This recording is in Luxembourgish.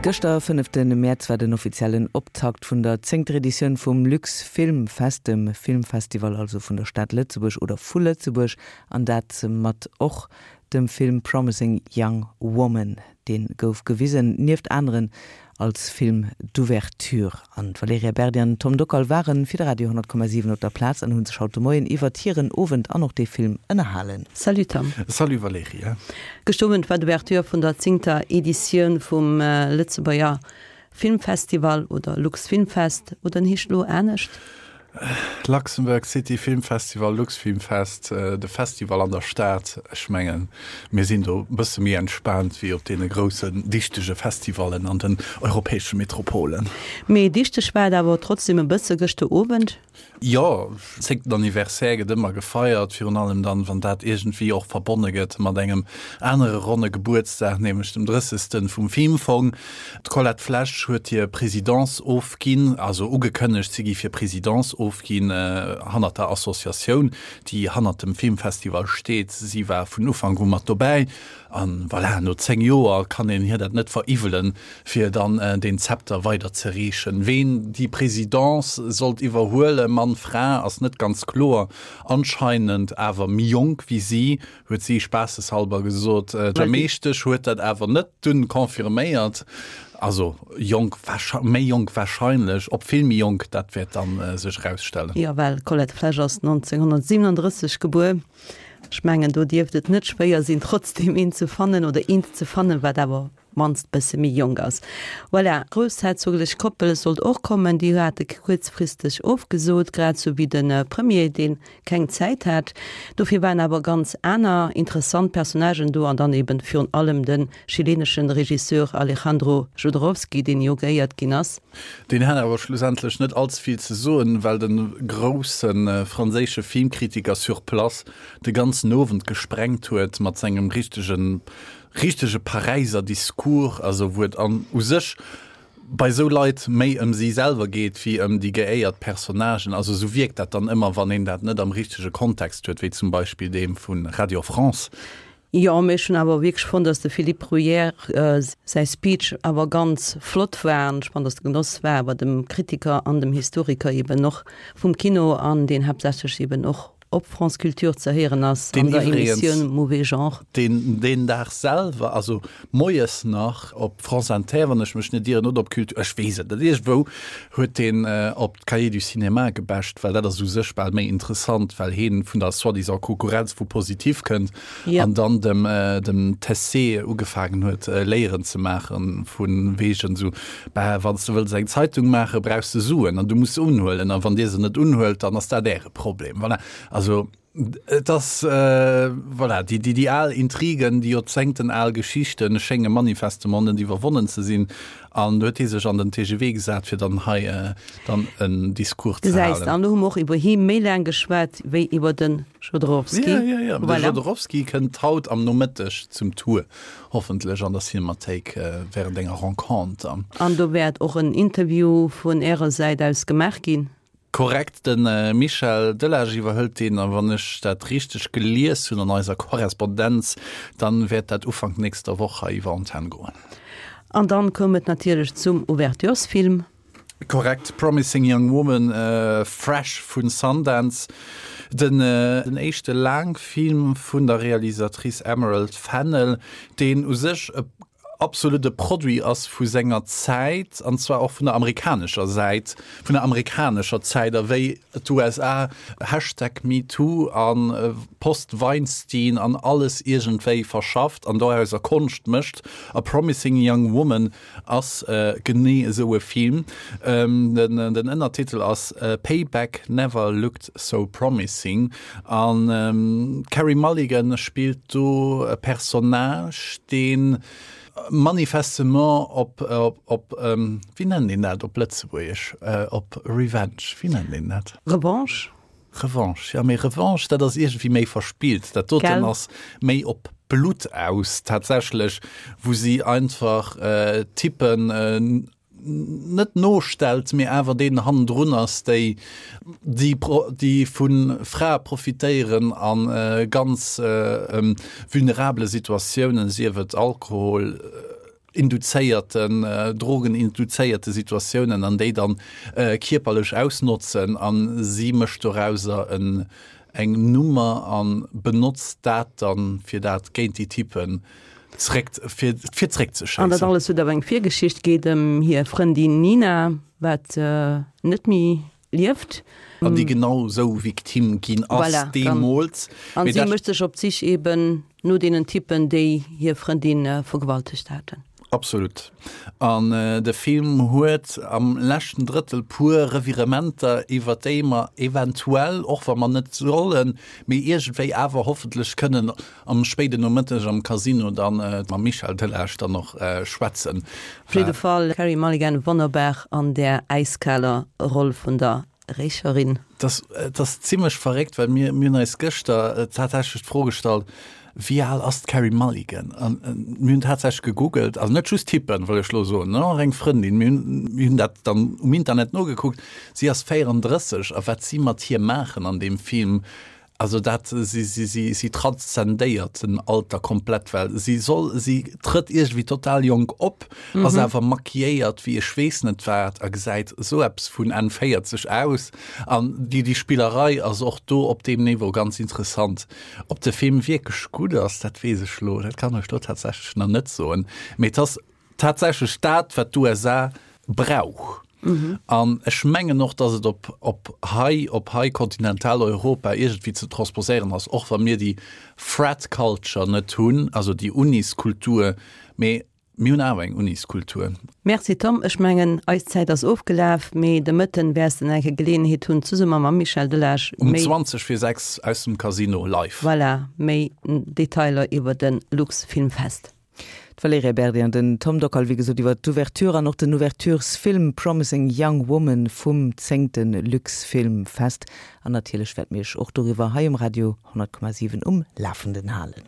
Gëschter, fënnefte Mäerz, war den offiziellen Optakt vun der zéngter Editioun vum LuxFilmFest, dem Filmfestival also vun der Stad Lëtzebuerg oder vu Lëtzebuerg, an dat mat och dem Film Promising Young Woman. Dee gouf gewisen, nieft aneren, als Film d'ouverture. An d'Valerija Berdi an den Tom Dockal ware fir de Radio 100,7 op der Plaz an hu sech haut de Moien iwwert hiren Owend an och dee Film ënnerhalen. Salut Tom. Salut Valerija. Gëschter Owend war d'Ouverture vun der zéngter Editioun vum Lëtzebuerger Filmfestival oder Luxfilmfest, oder en heescht elo anescht? Luxembourg City Film Festival, Luxfilmfest, de Festival an der Stad. Ech mengen, mir sinn do e bësse méi entspaant wéi op deene groussen, dichtege Festivallen an den europäesche Metropolen. Mee dichteg war et awer trotzdem e bësse gëschter Owend. Jo, zéngten Anniversaire gëtt ëmmer gefeiert, virun allem dann, wann dat iergendwéi och verbonne gëtt mat engem anere ronne Gebuertsdag, nämlech dem drëssegsten vum Filmfong. D'Colette Flesch huet hir Présidence ofginn, also ugekënnegt, si géif hir Présidence ofginn hannert der Associatioun, déi hannert dem Filmfestival steet. Si war vun Ufank u mat dobäi an voilà, no 10 Joer kann een hir dat net veriwwelen, fir dann deen Zepter weider ze reechen. Ween déi Présidence sollt iwwerhuelen, Mann, Fra, ass net ganz kloer. Anscheinend awer méi jonk wéi si. Huet si spaasseshalber gesot. D'Meeschtesch huet dat awer net dunn confirméiert. Also jonk, méi jonk warscheinlech, ob vill méi jonk, dat wäert dann sech erausstellen. Jo, well d'Colette Flesch ass 1937 gebuer. Ech mengen, do dierft et net schwéier sinn, trotzdeem een ze fannen oder eent ze fannen, wat awer mannst bësse méi jonk ass. Voilà, d'groussherzoglech Koppel sollt och kommen, déi hate kuerzfristeg ofgesot, grad sou wéi de Premier, dee keng Zäit hat. Dofir waren awer ganz aner interessant Personnagen do an dann eben virun allem de chileneschen Regisseur Alejandro Jodorowsky, deen jo geéiert ginn ass. Deen hat awer schlussendlech net allze vill ze soen, well de grousse franséische Filmkritiker sur place de ganzen Owend gesprengt huet mat sengem richtegen richtege Paräiser Discours, also wou et an u sech bei esou Leit méi ëm si selwer geet wéi ëm déi geéiert Personnagen. Also esou wierkt dat dann ëmmer, wann een dat net am richtege Kontext huet, wéi zum Beispill deem vu Radio France. Jo, mee ech hunn awer wierklech fonnt, datt de Philippe Bruyère säi Speech awer ganz flott war an ech fand, datt de Genoss war awer dem Kritiker an dem Historiker eben och vum Kino an deen haaptsächlech eben och op France Culture ze héieren ass an der Emissioun Mauvais Genre. Deen deen Dag selwer, also moies nach op France Inter, wann ech mech net ieren, oder op Culture, ech weess et net, iergendwou huet deen op d'Cahiers du Cinéma gebasht, well dat ass u sech bal méi interessant, well heen vun der soi-disant Konkurrenz vu Positif kënnt an dann dem dem Tessé ugefaangen huet Léieren ze maachen vu wegen esou, bah, wann s de wëlls eng Zeitung maachen, brauchs de Suen an du muss se unhuelen an wann dir se net unhuelt, dann ass dat äre Problem. Voilà. Also et ass voilà, déi déi déi al Intrigen, déi joerzéngten al Geschichten schénge manifestement net iwwerwonnen ze sinn an do huet hie sech an den TGV gesat, fir dann hei dann en Discours ze halen. Gesäis, an do hu mer och iwwer hie méi laang geschwat wéi iwwer de Jodorowsky. Ja, ja, ja. De Jodorowsky kënnt haut am Nomëtteg zum Tour, hoffentlech an der Cinemathéik während enger Renconter. An do wäert och en Interview vun Ärer Säit aus gemaach ginn? Korrekt, de Michel Delage iwwerhëlt deen, a wann ech dat richteg gelies hunn an eiser Korrespondenz, dann wäert dat Ufank nächster Woch hei iwwer Antenn goen. An dann koum et natierlech zum Ouverturesfilm. Korrekt, Promising Young Woman, fresh vun Sundance, den éischte Laangfilm vun der Realisatrice Emerald Fennell, deen u sech e absolut e Produit ass vu senger Zäit, an zwar och vun der amerikanescher Säit, vun der amerikanescher Zäit, a wéi d'USA Hashtag MeToo a Post-Weinstein an alles iergendwéi verschafft an dorauser Konscht mécht. A Promising Young Woman ass genee esou e Film. Den Ënnertitel ass Payback Never Looked So Promising an d'Carey Mulligan spillt do e Personnage, dee manifestement op, op, wéi nennt een dat op Lëtzebuergesch, op Revenge, wéi nennt een dat? Revanche? Revanche, jo, mee Revanche, dat ass iergendwéi méi verspillt. Dat doten ass méi op Blutt aus tatsächlech, wou si einfach Typen net nostellt, mee awer deenen hannendrun ass, déi déi déi vu Frae profitéieren a ganz vulnerabele Situatiounen, sief et Alkohol. Induzéierten, drogeninduzéierte Situatiounen an déi dann kierperlech ausnotzen an si mécht dorauser en eng Nummer an benotzt dat dann fir dat géint déi Typen zréck fir fir zréck ze An dat schéissen. alles huet awer eng Virgeschicht, geet ëm hir Frëndin Nina, wat net méi lieft. An déi genau sou Victime ginn ass Voilà, dann. deemools. An Mee si dat. mécht sech op d'Sich eben no deenen Typen, déi hir Frëndin vergewaltegt haten. Absolut. An de Film huet am leschten Drëttel puer Revirementer, iwwer déi mer eventuell, och wa mer net sollen, mee iergendwéi awer hoffentlech kënnen am spéiden Nomëtteg am Casino dann mam Michel Delage dann och schwätzen. Op jidde Fall Carey Mulligan wonnerbar an där äiskaler Roll vun der Rächerin. Et ass zimlech verréckt, well mir hunn eis gëschter tatsächlech d'Fro gestallt, Wéi al ass d'Carey Mulligan? An mir hunn tatsächlech gegoogelt, also net just tippen, wëll ech elo soen, och eng Frëndin, mir hunn dat dann um Internet nogekuckt, si ass 34 a wat si mat hir maachen an deem Film, Also dat, si, si, si, si transzendéiert den Alter komplett, well si soll, si trëtt iergendwéi total jonk op, ass awer maquilléiert wéi ech weess net wat a gesäit esou eppes vun Enn 40 aus. An déi, déi Spillerei ass och do op deem Niveau ganz interessant. Ob de Film wierklech gutt ass, dat weess ech elo, dat kann ech elo tatsächlech nach net soen, mee et ass tatsächlech dat, wat d'USA brauch. An ech mengen och, datt et op, op hei, op hei Kontinentaleuropa iergendwéi ze transposéieren ass, och wa mir déi Frat culture net hunn, also déi Uniskultur, mee mir hunn awer eng Uniskultur. Merci Tom, ech mengen eis Zäit ass ofgelaf, mee de Mëtten wäers de nach eng Kéier Geleeënheet hunn zesumme mam Michel Delage Um méi. 20 vir 6 aus dem Casino live. Voilà, méi Detailer iwwer de Luxfilmfest. D'Valerija Berdi an den Tom Dockal, wéi gesot, iwwer d'Ouverture an och den Ouverturesfilm Promising Young Woman vum zéngte Luxfilmfest. An natierlech wäerte mir iech och doriwwer hei um Radio 100,7 um Lafenden halen.